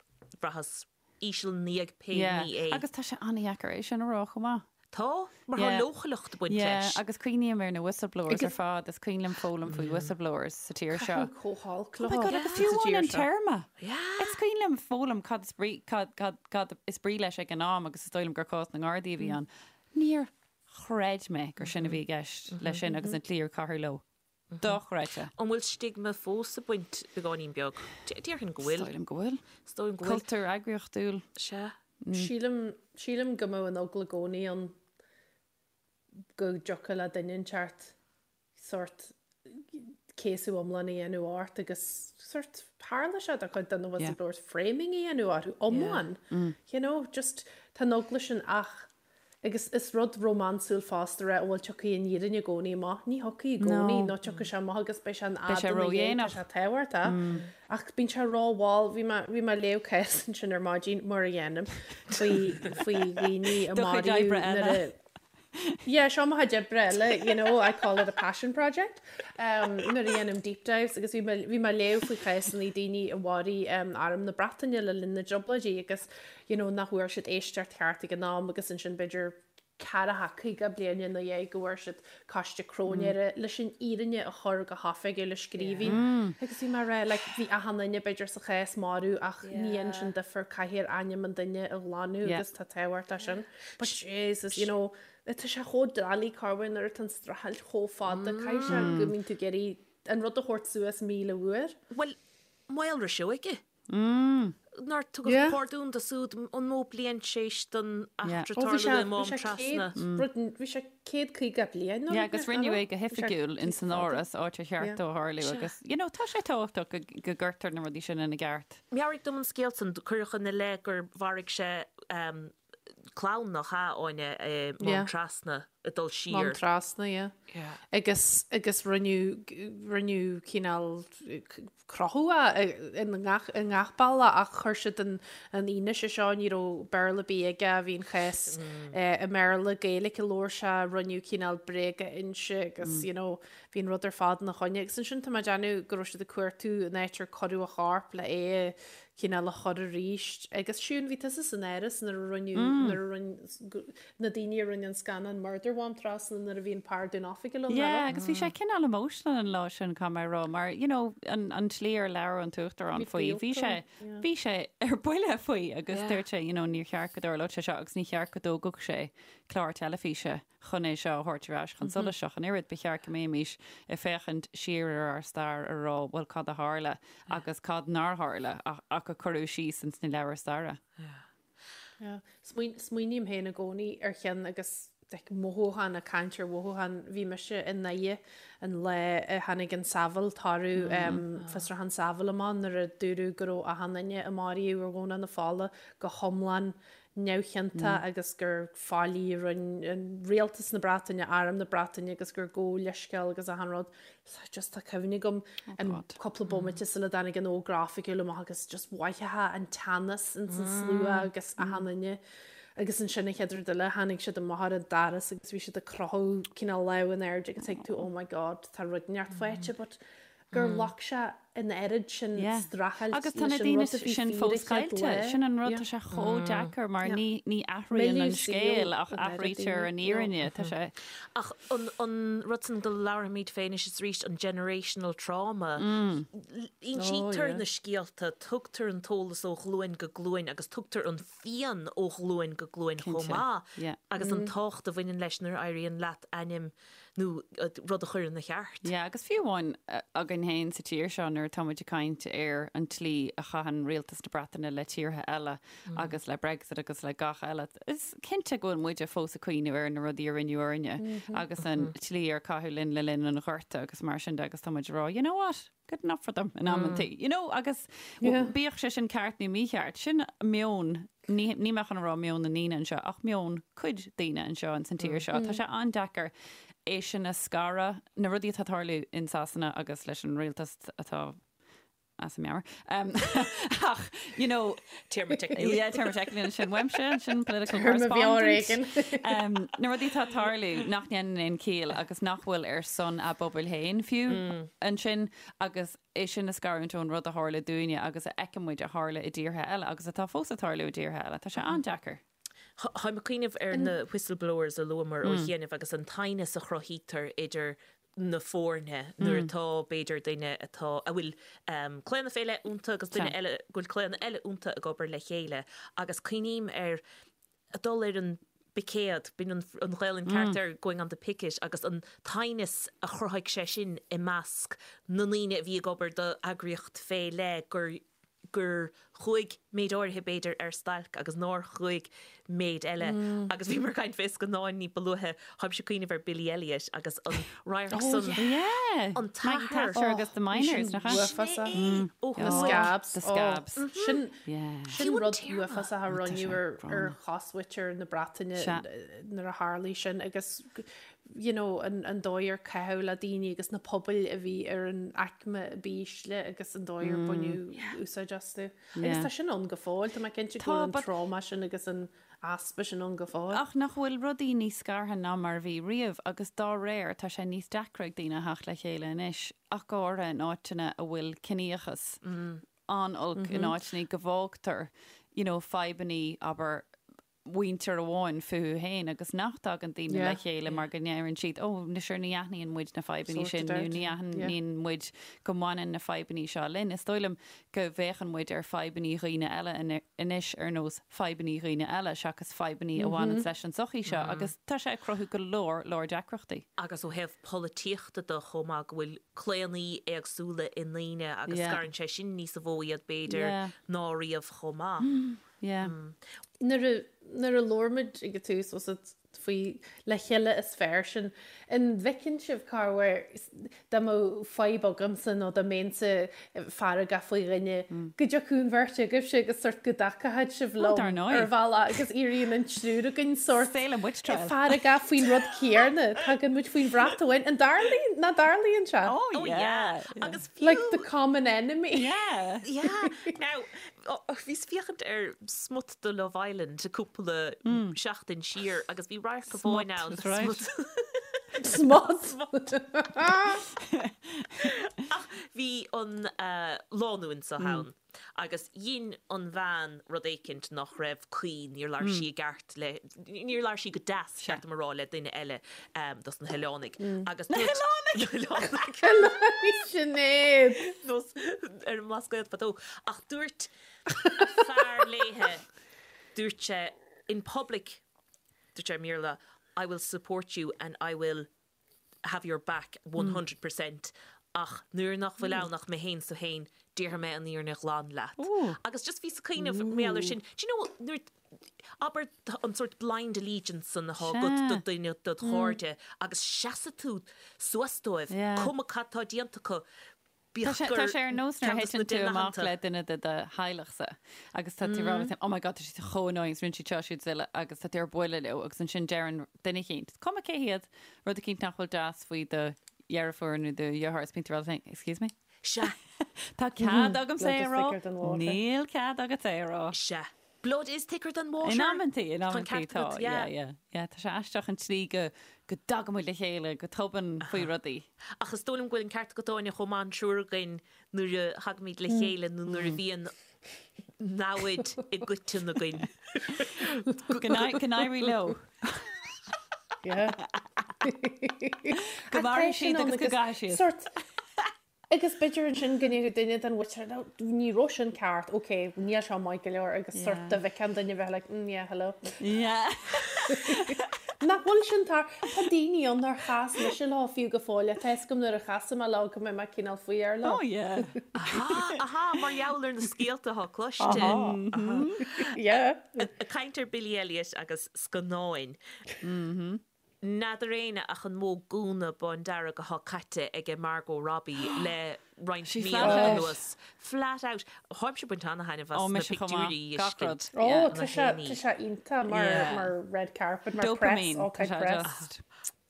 bhraitheas íseal ina dhiaidh pé ní é. Agus tá sé an-dheacair é sin a rá chomh maith. Tá, mar tá leochaileacht ag baint leis. Agus cuimhním ar na whistleblowers ar fad, is cuimhin liom foghlaim faoi whistleblowers sa tír seo. Caithfidh chomh holc leo. Oh my God, agus fiú amháin an téarma! Is cuimhin liom foghlaim cad is brí, cad, cad, cad is brí leis ag an am agus is dóigh liom gur cás na nGardaí a bhí ann. Níor chreid mé gur sin a bhí i gceist leis sin agus an tslí ar caitheadh leo. Dochreidte. An bhfuil stigma fós ag baint beagáinín beag? Déarfainn go bhfuil. Is dóigh liom go bhfuil. Is dóigh liom go bhfuil. Cultúr eagraíochtúil. Sea. Sílim, sílim go mbeadh an eagla i gcónaí ann go dtiocfadh le duine inteacht sórt céasadh iomlán a dhéanamh ort agus sórt tharla sé do chuid de na whistleblowers framing a dhéanamh orthu iomlán. You know, just tá an eagla sin ach Agus is rud rómánsúil fosta a rá, bhuel tiocfaidh an fhírinne i gcónaí amach. Ní thiocfaidh i gcónaí, nó tiocfaidh sé amach agus beidh sé in Beidh sé fhad ina dhiaidh, tá ródhéanach. sé tábhachtach. Ach bíonn sé rómhall. Bhí mé, bhí mé ag léamh cás ansin ar maidin, mar a dhéanaim, faoi, faoi dhaoine a Do chuid maraíodh oibre nuair eile. a, Yeah, seo mo chuid oibre eile, you know, I call it a passion project. Um, nuair a dhéanaim deep dives agus bhí mé, bhí mé ag léamh faoi chásanna daoine a mharaigh um, Arm na Breataine le linn na dTrioblóidí agus you know, nach bhfuair siad éisteacht cheart ag an am agus ansin b'fhéidir. ceathracha, 50 bliain ina dhiaidh go bhfuair siad Coiste Cróinéara leis an fhírinne a chur go hoifigiúil i scríbhinn. Agus bhí mé ag rá, like, bhí achan duine b'fhéidir sa chás marbh ach ní dhéanann sin difear, caithfear ainm an duine a ghlanadh agus tá tábhacht leis sin. But Jesus, you know, tá sé chomh doiligh corruair nuair atá an streachailt chomh fada, caithfidh sé go mbíonn tú ag iarraidh an rud a thabhairt suas 1,000 uair. Bhuel, Maolra Seoige. Nár tugadh pardún dó siúd an mó bliain tar éis don eachtra tarlú i Mám Trasna. Bhí sé 150 bliain nó Yeah, agus rinneadh é go hoifigiúil in san Áras, áit ar cheart dó a tharlú agus, you know, tá sé tábhachtach go gcuirtear na rudaí sin ina gceart. Meabhraigh dom an scéal san, cuireadh ina leith gur mharaigh sé clann nach ea, Áine, i Mám Trasna ag dul siar. Mám Trasna, yeah. Yeah. Agus, agus rinneadh, rinneadh cineál crochadh é i ngach, i ngach bealach ach chuir siad an, an fhianaise seo, ní raibh Béarla ar bith aige, bhí an chás i mBéarla, Gaeilge a labhair sé, rinneadh cineál bréaga inse agus, you know, bhí an rud ar fad ina choinne. Agus ansin tá mé ag déanamh go raibh siad ag cuartú an áit ar cuireadh a chorp le é a cineál a chur arís. Agus Siún, bhí tusa san Áras nuair a rinneadh, nuair a rinne, na daoine a rinne an scannán Murder Mhám Trasna nuair a bhí an pardún oifigiúil ann, Yeah, agus bhí sé cineál emotional an lá sin, caithfidh mé a rá, mar, you know, an, an tslí ar labhair an tUachtarán faoi, bhí sé, bhí sé ar buile faoi agus dúirt sé, you know, níor cheart go dtarlódh sé seo agus ní cheart go dtógfadh sé clár teilifíse chun é seo a thabhairt ar ais chun solais ach an oiread. Ba cheart go mbeimis ag féachaint siar ar ár stair a rá bhuel cad a tharla agus cad nár tharla ach a cuireadh síos ins na leabhair staire. Smaoiním féin i gcónaí ar cheann agus like mothúchán, ag caint ar mhothúchán, bhí mise i nDoire an lá a tháinig an Saville, toradh fiosrúchán Saville amach nuair a dúradh go raibh achan duine a maraíodh ar Dhomhnach na Fola go hiomlán neamhchiontach agus gur faillí a rinne an rialtas na Breataine, arm na Breataine agus gur gabhadh leithscéal agus achan rud. So just tá cuimhne agam an cúpla bomaite sula dtáinig an fhógra oifigiúil amach agus just mhothófá an teannas ins an slua agus achan duine. Agus ansin an chéad rud eile tháinig siad amach ar an doras agus bhí siad ag croitheadh cineál lámh in airde agus thuig tú oh my god tá rud inteacht faighte but gur ghlac sé an oiread sin streachailt Agus tá na leis an daoine rud a bhí sin fíor fós an chéad caillte. lá. Sin an rud, Yeah. tá sé chomh deacair mar Yeah. ní, ní athraíonn an Milleadh saoil scéal ach an oiread athraítear daoine. an fhírinne. Tá sé. Ach an, an rud san go labhraímid fé anois is arís, an generational trauma, insítear Oh, yeah. na scéalta, tugtar an t-eolas ó ghlúin go glúin agus tugtar an phian ó ghlúin go glúin chomh Cinnte. maith Yeah. agus an tábhacht a bhaineann leis nuair a éiríonn leat ainm nó rud a chur ina cheart. Yeah, agus fiú amháin againn féin sa tír seo nuair atá muid ag caint ar an tslí a chaitheann rialtas na Breataine le tíortha eile agus le Brexit agus le gach eile, is cinnte go bhfuil muide fós ag cuimhneamh ar na rudaí a rinneadh orainne agus an tslí ar caitheadh linn le linn an Ghorta agus mar sin de agus tá muid ag rá, you know what? Good enough for them in amantaí, you know, agus bíodh sé sin ceart nó mícheart, sin meon, ní ní mé chun a rá meon na ndaoine anseo, ach meon cuid daoine anseo ins an tír seo. Tá sé an-deacair é sin a scaradh, na rudaí atá ag tarlú in Sasana agus leis an rialtas atá as a meabhair. Ach, you know, Téarma teicniúil. Yeah, téarma teicniúil ansin uaimse, sin political Téarma bheo ar correspondent. éigin. Um, na rudaí atá ag tarlú nach ndéanann aon chiall agus nach bhfuil ar son a bpobail féin fiú ansin agus é sin a scarúint ón rud a tharla dúinne agus a fheiceann muid a tharla i dtíortha eile agus atá fós ag tarlú i dtíortha eile. Tá sé an-deacair. Táim ag cuimhneamh ar na whistleblowers a luamar ó chianaibh agus an t-aighneas a chruthaítear idir na foirne nuair atá, b'fhéidir, duine atá, a bhfuil claonadh fé leith iontu agus duine eile go bhfuil claonadh eile iontu ag obair le chéile agus cuimhním ar dul ar an bpicéad, b'in an Ghaelainn ceart air, going on the picket, agus an t-aighneas a chruthaigh sé sin i measc na ndaoine a bhí ag obair do eagraíocht fé leith gur gur chuaigh méid áirithe b'fhéidir ar stailc agus nár chuaigh méid eile agus bhíomar ag caint fé scannáin ní ba luaithe, táimse ag cuimhneamh ar Billy Elliot agus an radharc san, Yeah! an Maggie t-athair. Thatcher agus The Miners, nach ea? Uafásach. Sin é! Ó The chuaigh. Scabs. The Scabs. Sin Yeah. sin Fiú an rud téarma. uafásach a rinneadh ar ar chosmhuintir na Breataine Sea. nuair a tharlaigh sin agus you know, an, an dóigh ar caitheadh le daoine agus na pobail a bhí ar an aicme b'ísle agus an dóigh ar baineadh úsáid astu. Agus tá sin ann go fóill, tá mé cinnte go bhfuil an trauma sin agus an easpa sin ann go fóill. Ach nach bhfuil rudaí níos scartha ná mar a bhí riamh agus dá réir tá sé níos deacra ag daoine a theacht le chéile anois, ach go háirithe in áiteanna a bhfuil ciníochas an-olc, in áiteanna go bhfágtar, you know, fadhbannaí, abair, mhuintir amháin fúthu féin agus nach dtagann daoine le chéile mar go ndeireann siad, ó, sure ní aithníonn muid na fadhbanna sin nó ní aithníonn muid go mbaineann na fadhbanna seo linn. Is dóigh liom go bhféachann muid ar fadhbanna dhaoine eile anois ar nós fadhbanna dhaoine eile seachas fadhbanna a bhaineanns leis an tsochaí seo agus tá sé ag cruthú go leor leor deacrachtaí. Agus ó thaobh polaitíochta de chomh maith go bhfuil claonadh éagsúla i ndaoine agus scarann sé sin níosa mhó iad b'fhéidir ná riamh chomh maith. Yeah. Nuair a, nuair a labhair muid ag an tús was it faoi le chéile is fearr sinn, an bhfeiceann sibh corruair dá mbeadh fadhb agamsa nó dá mbeinnse feargach faoi dhuine, go dtiocfadh an bheirt agaibhse agus sort go dtacódh sibh Oh, dar liom ndóigh. ar bhealach agus éiríonn an triúr againn sort Saolann muid triail. feargach faoin rud céanna, tagann muid faoin bhrat amháin. An dtarlaíonn, nach dtarlaíonn sé? Oh, Oh yeah. yeah. Yeah. Agus fiú. Like the common enemy. Yeah. Yeah. Now, Bhíos ag féachaint ar smut de Love Island cúpla seachtain siar agus bhí radharc amháin ann. Smut, Smut! Smut! Ach bhí an lánúin seo ann agus dhein an bhean rud éicint nach raibh cuí, níor labhair sí i gceart le, níor labhair sí go deas, ceart dom a rá, le duine eile dos na hoileánaigh. Agus Na hoileánaigh! Na hoileánaigh! Oileánaigh Sinéad! Nós ar an mBlascaod fadó. Ach dúirt a fear léithe, dúirt sé in public, dúirt sé i mBéarla, I will support you and I will have your back 100% ach nuair nach bhfuil ann ach mé féin 's tú féin, déarfaidh mé an fhírinne ghlan leat. Agus just bhíos ag cuimhneamh mar gheall air sin, do you know, nuair, abair an sórt blind allegiance san atá agat do dhuine dod chairde agus seasfaidh tú suas dóibh, cuma cad tá déanta acu, Tá sé, tá sé ar nós nuair a thiteann tú amach le duine de do theaghlachsa agus tá tú ag rá leat féin, oh my god, tá siad chomh annoying, rinne siad seo, siúd is uile agus tá tú ar buile leo agus ansin deireann duine eicínt, cuma cé hiad, rud eicínt nach bhfuil deas faoi do dheirfiúr nó do dheartháir is bíonn tú ag rá leat féin, excuse me? Sea. Tá cead agamsa é a rá? Níl cead agat é a rá. Sea. Blood is thicker than water. In amantaí, in Tá an amantaí ceart tá, agat, yeah, yeah. yeah, yeah. Tá sé aisteach an tslí go, go dtagann muid le chéile go tobann faoi rudaí. Ach is dóigh liom go bhfuil an ceart agat Áine chomh maith an triúr againn nuair a thagaimid le chéile nó nuair a bhíonn namhaid i gcoiteann againn. Go n-éirí leo. Yeah. Go mairfidh siad agus go gcaithfidh siad. Sort, Agus b'fhéidir ansin go ndéarfadh duine den mhuintir, no, ní raibh sin ceart, ok, níl seo maith go leor agus sort dá bhfeicfeá an duine bheith like, mm, yeah, hello. Yeah. Nach bhfuil sin tar, tá daoine ann nár chas mise leo fiú go fóill, tá fhios agam nuair a chasfaidh mé leo go mbeidh mé cineál faoi air leo. Oh yeah. Aha, aha, mar gheall ar na scéalta atá cloiste. Aha. Yeah. Ag caint ar Billy Elliot agus scannáin. N'fheadar éinne ach an mó gúna bándearg athá caite aige Margot Robbie le roinnt She míonna flat out. anuas. Flat out. Tháimse ag baint ana-thaitneamh as Ó, na mise chomh maith. pictiúirí a Gach rud. fheiscint. Ó, Yeah. tá sé, tá sé iontach mar, Yeah. mar red carpet, mar press, Dopamine. all Tá kind sé press. just.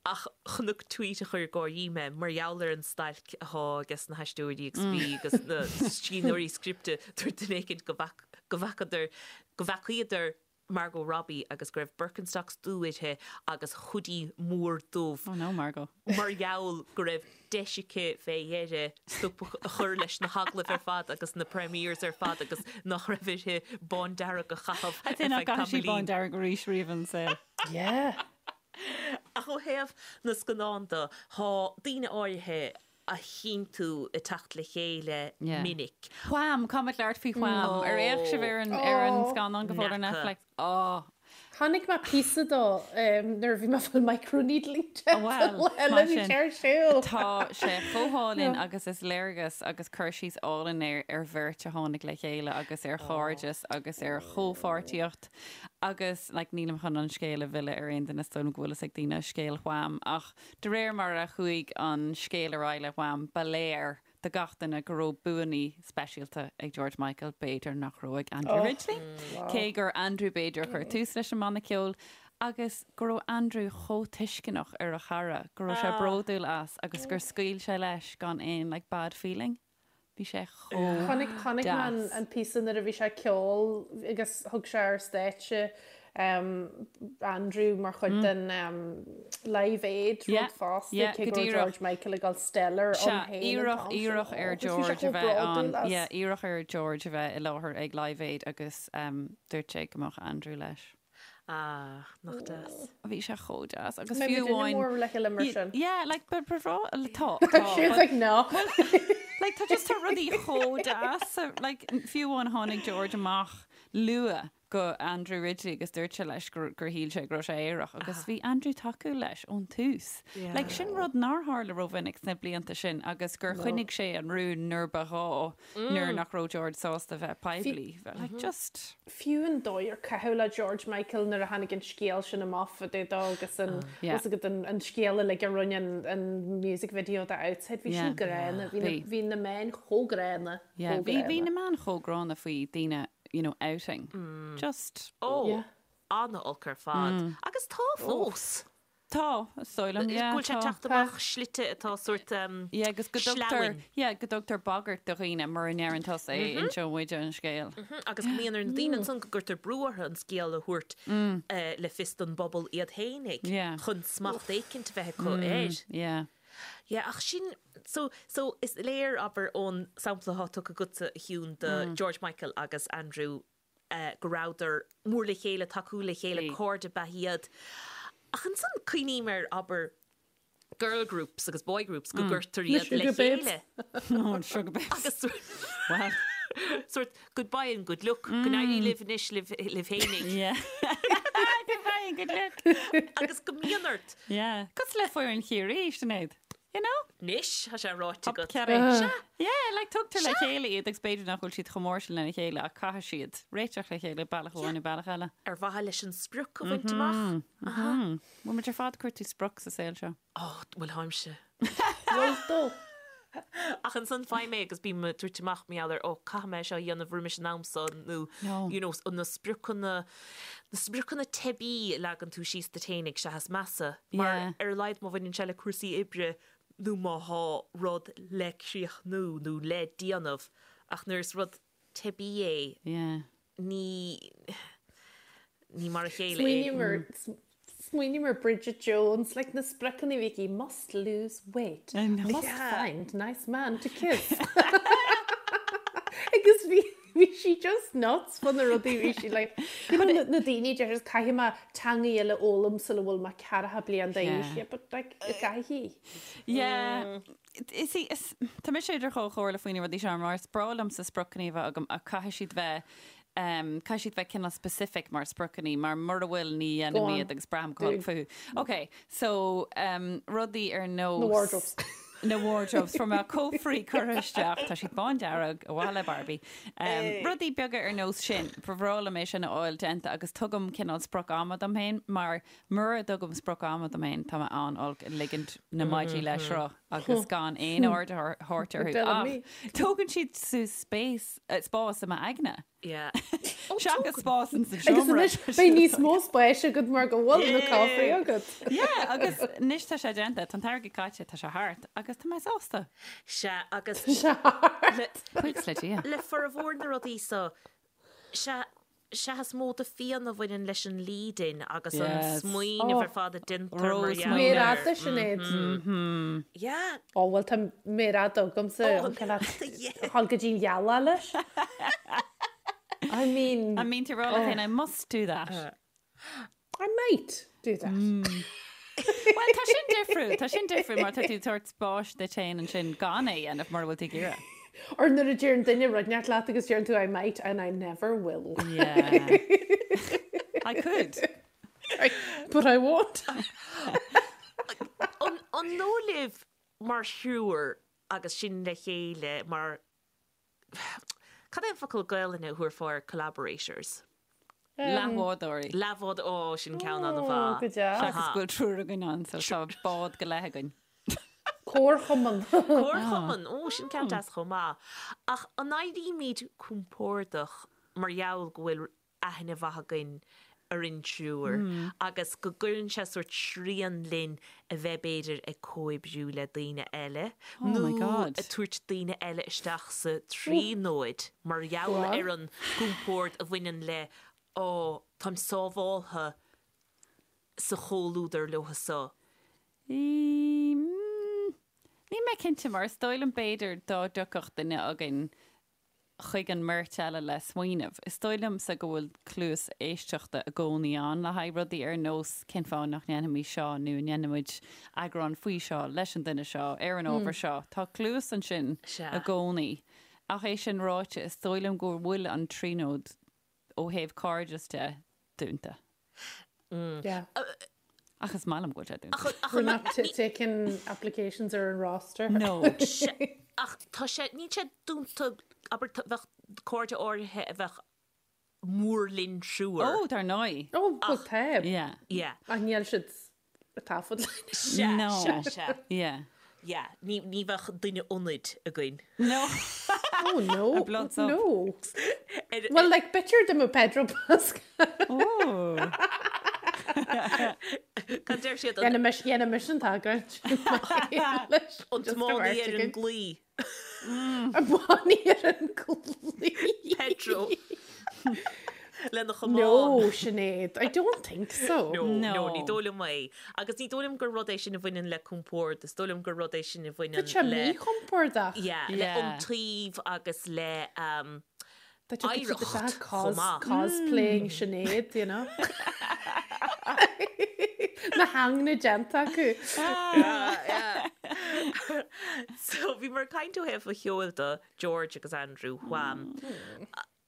Ach chonac tweet a chuir ag gáirí mé mar gheall ar an stailc athá ages na haisteoirí agus bhí agus na scríbhneoirí scripte dúirt duine éicint go bhfac, go bhfacadar, go bhfeacaíodar Margot Robbie agus go raibh Birkenstocks dubh uirthi agus hoodie mór dubh. Oh no, Margot. Mar gheall go raibh deis aici fé dheireadh stop a chur leis na hagallaimh ar fad agus na premieres ar fad agus nach raibh uirthi bándearg a chaitheamh I'd say ar nach feadh gcaithfidh sí tamaillín. bándearg arís riamh ina saol. Yeah. Ach ó thaobh na scannán de, tá daoine áirithe a chíonn tú ag teacht le chéile minic. Wham! Caithfimid labhairt faoi Wham! Ar fhéach sibh ar an ar an scannán go fóill ar Netflix? Oh! Chonaic mé píosa dó nuair a bhí mé ag fáil microneedling Bhuel, eile mar bhí sin, sé ar siúl. Tá sé chomh hálainn agus is léargas agus cur síos álainn é ar bheirt a tháinig le chéile agus ar chairdeas agus ar chomhpháirtíocht agus like nílim chun an scéal a mhilleadh ar aon duine is dóigh liom go bhfuil fhios ag daoine scéal Wham ach De réir mar a chuaigh an scéal ar aghaidh le Wham, ba léir do gach duine go raibh buanna speisialta ag George Michael, b'fhéidir nach raibh ag Andrew Ridgeley, cé gur Andrew b'fhéidir a chuir tús leis an mbanna ceoil, agus go raibh Andrew chomh tuisceanach ar a chara, go raibh sé bródúil as agus gur scaoil sé leis gan aon like bad feeling. Bhí sé chomh Chonaic chonaic mé an deas. an píosa nuair a bhí sé ag ceol agus thug sé ar stáitse Andrew mar chuid den Live Aid Yeah, rud fosta yeah, cé go go raibh díreach. George Michael ag dul stellar Sea, ann féin an iarradh t-am sin. iarradh Oh, ar agus bhí sé George a chomh bheith bródúil ann, as. yeah, iarradh ar George a bheith i láthair ag Live Aid agus dúirt sé go mbeadh Andrew leis. Ah, nach deas. Bhí sé chomh deas agus Mbeidh fiú muid amháin. mór le chéile mar sin. Yeah, like but but tá tá She's like no. Like tá just tá rudaí chomh deas like fiú amháin tháinig George amach luath go Andrew Ridgeley agus dúirt sé leis gur gur shíl sé go raibh sé aerach agus bhí Andrew tacúil leis ón tús. Like sin rud nár tharla rómhinic sna blianta sin agus gur choinnigh sé an rún nuair ba ghá nuair nach raibh George sásta bheith poiblí. Like just. Fiú an dóigh ar caitheadh le George Michael nuair a tháinig an scéal sin amach fá dtaobh dó agus an Yeah. bhfuil fhios agat an an scéal uilig a rinne an an music video de Outside bhí sin Yeah. gránna bhí na Bhí. bhí na meáin chomh gránna Yeah, chomh bhí bhí gránna. na meáin chomh gránna faoi daoine you know, outing. Just. Ó, Yeah. an-olc ar fad. Agus tá fós. Tá, is dóigh liom, yeah, Go bhfuil sé tá. teacht amach slite atá sórt um, Yeah, agus go dtugtar, sleamhain. yeah, go dtugtar bagairt do dhaoine mura ndeireann tusa é, inseoidh muide an scéal. Agus go mbíonn ar na daoine ansan go gcuirtear brú orthu an scéal a thabhairt eh, le fios don bpobal iad fhéinig Yeah. chun smacht éicint a bheith acu air. Yeah. Yeah, ach sin, so, so is léir, abair, ón sampla atá tugtha agatsa, a Shiún, de George Michael agus Andrew eh, go rabhadar mór le chéile, tacúil le chéile, Bhí. cairde ab ea iad. Ach ansan cuimhním ar, abair, girl groups agus boy groups go gcuirtear Na iad le Sugar Babes. chéile. Oh, an Sugar Babes. Agus sórt- Well. sórt goodbye and good luck, go n-éirí libh anois libh, libh fhéinig. Yeah. Goodbye and good luck. Agus go mbíonn ort. Yeah. Cosúil le foireann Chiarraí, Sinéad. You know? Anois, tá sé ráite agat. Cearraí. Yeah, like tugtar le chéile iad agus b'fhéidir nach bhfuil siad chomh mór sin lena chéile ach caithfidh siad réiteach le chéile bealach amháin nó bealach eile. Ar mhaithe leis an sprioc a bhaint amach. Bhfuil muid ar fad ag cuartú sprioc sa saol seo? Ó, bhuel táimse. Bhfuil tú? Ach ansan faighim é agus bím ag tabhairt amach mar gheall ar, ó, caithfidh mé seo a dhéanamh roimis an am so nó, No. you know, na spriocanna, na spriocanna teibí a leagann tú síos duit fhéinig sea is measa. Mar Yeah. ar a laghad má bhaineann sé le cúrsaí oibre nó má thá rud le críochnú nó le déanamh ach nuair is rud teibí é, Yeah. ní, ní mar a chéile é. Smaoiním ar smaoiním ar Bridget Jones, like na spriocanna a bhí aici, must lose weight, I know. must find nice man to kiss. Agus bhí bhí sí just nuts fá na rudaí bhí sí like, you know, na na daoine deir siad, caithfidh mé teanga eile a fhoghlaim sula bhfuil mé ceathracha bliain d'aois. Yeah. Yeah, but like, caithfidh. Yeah. Is í, is, tá mise idir dhá chomhairle faoi na rudaí seo mar is breá liomsa spriocanna a bheith agam ach caithfidh siad bheith um, caithfidh siad bheith cineál specific mar spriocanna mar mura bhfuil ní Go dhéanaim on. iad agus braithim go holc Do. fúthu. Ok, so um, rudaí ar nós Na wardrobes. Na wardrobes fuair mé cófraí curtha isteach, tá siad bándearg, ar mhaithe le Barbie. Um, rudaí beaga ar nós sin, ba bhreá liom é sin a fháil déanta agus tugaim cineál sprioc ama dom féin mar mura dtugaim sprioc ama dom féin tá mé an-olc ag ligint na maidí le sruth agus gan aon aird a thabhairt orthu. Tell Ach me. tógann siad suas space, eh, spás i m'aigne. Yeah. Seachas spás in sa Agus seomra. anois beidh níos mó spáis agat mar go bhfuil na cófraí agat. Yeah, agus anois tá sé déanta, tá an t-airgead caite, tá sé thart agus tá mé sásta. Sea, agus Buíochas le Dia. le formhór na rudaí so, sea, sea is mó de phian a bhaineann leis an lead-in agus an Yes. smaoineamh Oh. ar fad a déantar mar Ró gheall smaoineamh. Méar air. fhada, Sinéad. Yeah. Ó bhuel tá méar fhada agamsa Oh, an cineál yeah. dhul go dtí an ghealach leis. I mean, I mean to roll oh. I must do that. I might do that. Well, tá sin difriúil, tá sin difriúil mar tá tú ag tabhairt spáis duit féin ansin gan é a dhéanamh mura bhfuil tú ag iarraidh. Or nuair a deireann duine rud inteacht leat agus deireann tú I might and I never will. Yeah. I could. But I won't. An an dóigh libh mar thriúr agus sinn le chéile mar Cad é an focal Gaelainne a thabharfá ar collaborators? Leathbhádóirí. Leathbhád, ó, sin ceann Ó, an-mhaith. go deas. Seachas go bhfuil triúr againn ann, so tá bád go leith againn. Comharchumann. Comharchumann, ó, sin ceann deas chomh maith. Ach an éirímid compordach mar gheall go bhfuil aithne mhaith againn ar an triúr agus go gcuireann sé sórt srian linn a bheith b'fhéidir ag comhoibriú le daoine eile Oh nó my God. ag tabhairt daoine eile isteach sa tríonóid mar gheall ar an gcompord a bhaineann le ó táim sábháltha sa chomhluadar leo so. Mm, Níl mé cinnte mar is dóigh liom b'fhéidir dá dtiocfadh duine againn. chuig an mbeirt eile le smaoineamh. Is dóigh liomsa go bhfuil cluas éisteachta i gcónaí ann le haghaidh rudaí ar nós cén fáth nach ndéanfaimid seo nó an ndéanfaimid eagrán faoi seo leis an duine seo ar an ábhar seo. Tá cluas ansin i gcónaí. Ach é sin ráite, is dóigh liom go bhfuil an Tríonóid ó thaobh cairdeas de dúnta. Yeah. Ach is maith liom go bhfuil sé dúnta. We're not taking applications ar an roster. No. Ach tá sé, níl sé dúnta, abair, bheadh cairde áirithe a bheadh mór linn triúr. Ó, dar ndóigh. Ó, bhuel tá. Yeah. Yeah. Ach níl siad ag taifead linn. Sea, No. sea, sea. Yeah. Yeah, ní, ní bheadh duine ionaid againn. No. Oh no. A blood sub. No. Ar, Well, like, b'fhéidir dá mbeadh Pedro Pascal. Ooh. Cad deir siad an, Dhéanfaimis, dhéanfaimis an tagairt. an tiománaí ar an gclaí. An tiománaí ar an gclaí. Pedro. Lena chamán. No, Sinéad, I don't think so. No, no, No. ní dóigh liom é. Agus ní dóigh liom gur rud é sin a bhaineann le compord, is dóigh liom gur rud é sin a Tá bhaineann sé le míchompordach. yeah, le Yeah. iontaoibh agus le um, Tá sé oidhreacht isteach chomh cos, maith. cosplaying Sinéad, you know. Na hangne déanta acu. So bhíomar ag caint ó thaobh an cheoil de, George agus Andrew Wham.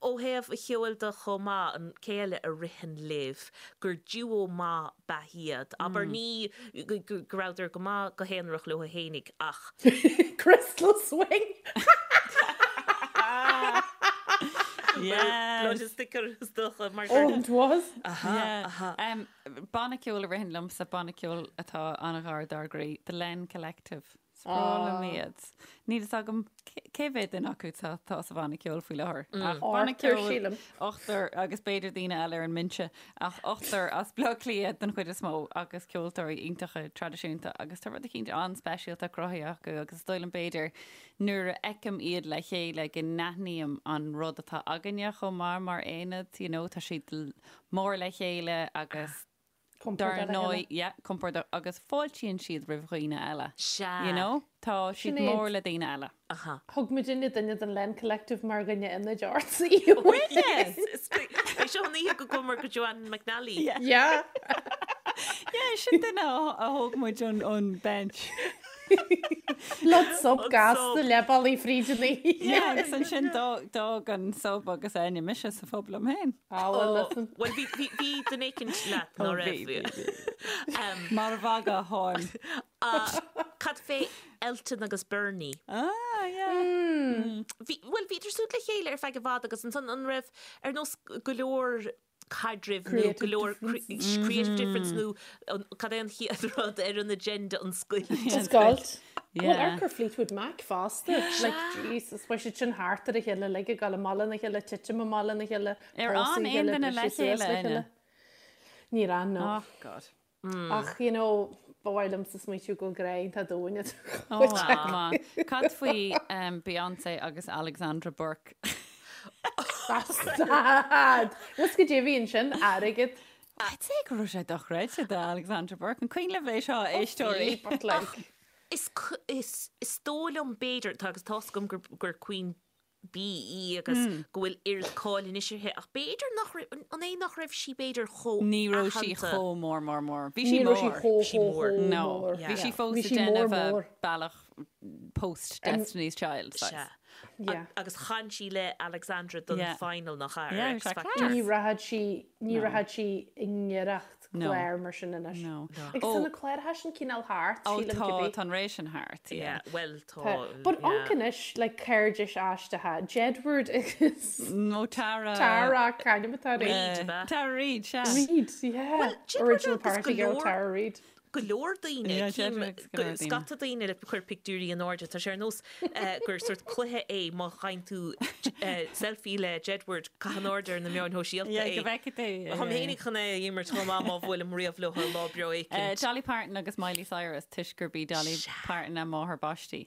Ó thaobh an cheoil de chomh maith, an cé eile a ritheann libh gur duo maith ab ea iad? Abair ní go rabhadar go maith go haonarach leo fhéinig ach. Crystal Swing! Yes! Blood is thicker is dócha mar gur. Oh, it was. Aha, aha. Banna ceoil a ritheann liomsa, banna ceoil atá an-ghar dár gcroí, The Len Collective. Is breá liom iad. Níl fhios agam cé mhéad duine acu atá sa bhanna ceoil faoi láthair. Ach banna Ochtar, ceoil, sílim. ochtar agus b'fhéidir daoine eile ar an mbinse, ach ochtar as Baile Átha Cliath den chuid is mó agus ceoltóirí iontacha traidisiúnta agus tá rud eicínt an-speisialta cruthaithe acu agus is dóigh liom b'fhéidir nuair a fheicim iad le chéile go n-aithním an rud atá againne chomh maith mar aonad, you know, tá siad mór le chéile agus Compordach Dar le ndóigh, chéile. yeah, compordach agus fáiltíonn siad roimh dhaoine eile. Sea. You know? Tá siad Sinéad. mór le daoine eile. Aha. Thug muidinne duine den Len Collective mar dhuine ionaid ort oíche Yes. É seo an oíche go gcuamar go Joanne McNally. Yeah. Yeah. Yeah, sin duine a a thóg muid ón ón bench. Blood sub An gasta sub. le ballaí fríd an oíche. Yeah, agus ansin d'fhág d'fhág an sub agus Áine mise sa phub liom féin. Ah, well, listen. Bhuel, bhí, bhí, bhí duine éicint leat, ná Ó, raibh? bhí, bhí, Mar a bhaga tháim. Cad fé Elton agus Bernie? Ah, yeah. Bhí, bhuel, bhíodar súd le chéile ar feadh i bhfad agus ansan an raibh ar nós go leor caidrimh nó go leor creative difference nó cad é an chéad rud ar an agenda an scoilt. An scoilt. Bhuel, amharc ar Fleetwood Mac fosta. Like, Jesus, bheadh siad sin thart ar a chéile, like, ag dul i mullach a chéile, titim i mullach a chéile, Ar pósadh fhan a aon chéile, duine le briseadh suas chéile, le Áine? chéile. Níor fhan, no. Oh, God. Ach, you know, ba mhaith liomsa smaoitiú go bhfuil grá iontach domhain idir Oh, chuid acu. maith. Cad faoi Beyonce agus Alexandra Burke? Stad! Bhfuil 's goidé a bhí ansin, airgead. I'd say go raibh sé dochreidte do Alexandra Burke. An cuimhin libh é seo, a éisteoirí? But like, Is, is, is dóigh liom b'fhéidir, tá agus tá's agam gur, gur Queen Bee í agus go bhfuil oiread cáil anois uirthi ach b'fhéidir nach raibh, an é nach raibh sí b'fhéidir chomh Ní raibh sí aitheanta? chomh mór mór mór. Bhí sí ní raibh sí mór. chomh Sí chomh mór. chomh No, mór. bhí sí fós Bhí ag sí mór déanamh a mór. bealach post Destiny's Child Sea. saghas. Yeah. Agus chan sí le Alexandra don Yeah. final nach ea, ar Yeah, X bhí sé Factor. class. Ní rachadh sí, ní rachadh sí i ngiorracht No. clár mar sin anois. No. Agus Ó. tá na cláracha sin cineál thart, Ó sílim tá, cibé. tá an ré sin thart, yeah. Yeah, bhuel tá, Tá. But yeah. amharc anois, like cairdis aisteacha, Jedward agus Nó Tara. Tara, c'ainm atá uirthi? Reid, ab ea? Tara Reid, sea. Reid, yeah. Well, Jedward Original agus party go girl leor- Tara Reid. go leor daoine, Yeah, cím Jedward agus go leor daoine. scata daoine le cur pictiúirí in airde, tá sé ar nós gur sort cluiche é má fhaigheann tú selfie le Jedward, caith in airde ar na meáin shóisialta Yeah, é. go bhfeicfidh tú. yeah, Táim yeah, fhéinig chun é a imirt chomh maith má bhuailim riamh leo ar lá breá yeah. éicint. Dolly Parton agus Miley Cyrus, toisc gurb í Dolly Parton a máthair baistí.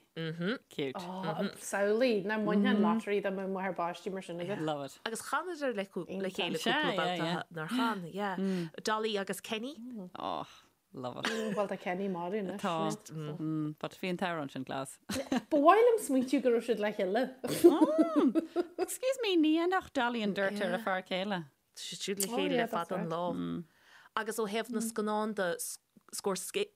Cute. Oh, samhlaigh, nach mbainfeá an lottery dá mbeadh máthair baistí mar sin agat. Love it. Agus chanadar le Iontach. chéile Sea, cúpla yeah, babhta yeah. nár chan, yeah. Dolly agus Kenny. Oh. Love it. Bhuel tá Kenny marbh anois. Tá. But bhí an t-amhrán sin class. Ba mhaith liom smaointiú go raibh siad le chéile. Excuse me, ní dhéanfadh Dolly an dirt ar a fear céile. Tá siad siúd le chéile le fada an lá. Agus ó thaobh na scannán de, Scorsese,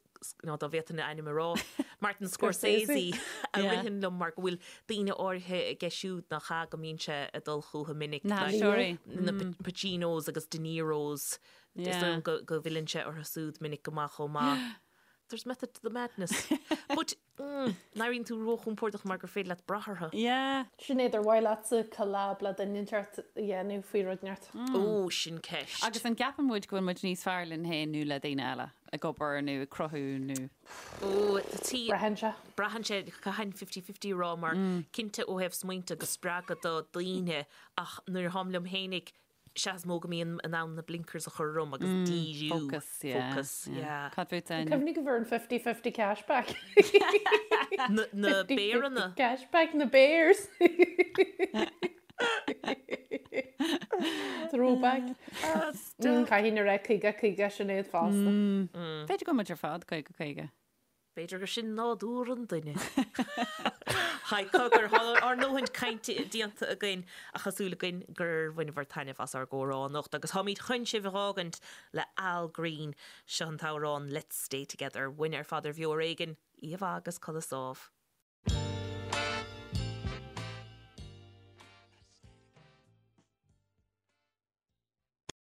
nó dá bhféadfainn a ainm a rá, Martin Scorsese a ritheann liom mar go bhfuil daoine áirithe aige siúd nach ea go mbíonn sé ag dul chucu minic. Na haisteoirí. Na Pacinos agus De Niros. Is dóigh liom go bhfilleann sé orthu siúd minic go maith chomh maith. There's method to the madness. But, mm, n-éiríonn tú róchompordach mar gur féidir leat brath orthu. Yeah. Sinéad, ar mhaith leatsa collab le duine inteacht a dhéanamh faoi rud inteacht? Ó, sin ceist. Agus an gceapann muid go bhfuil muid níos fearr linn féin nó le daoine eile, ag obair nó ag cruthú nó. Ó, tí. Braitheann sé. Braitheann sé, caithfinn fifty-fifty a rá mar cinnte ó thaobh smaointe agus spreagadh do daoine ach nuair atáim liom fhéinig, sea is mó go mbím in ann na blinkers a chur orm agus díriú. Focus, yeah. Focus, yeah. Cad fút Áine? Cuimhnigh go bhfuair an fifty-fifty cashback. Na béaranna. Cashback na bears. Throwback. Caithfidh na rá 50-50 Sinéad fosta. B'fhéidir go bhfuil muid ar fad 50-50. B'fhéidir gur sin nádúr an duine. Haigh, cogar, tá ár ndóthain cainte déanta againn ach tá súil againn gur bhaineabhair taitneamh as ár gcomhrá anocht agus táimid chun sibh a dh'fhágaint le Al Green. Seo an t-amhrán Let's Stay Together. Uainne ar fad ar Bheo Ar Éigean, oíche mhaith agus codladh sámh.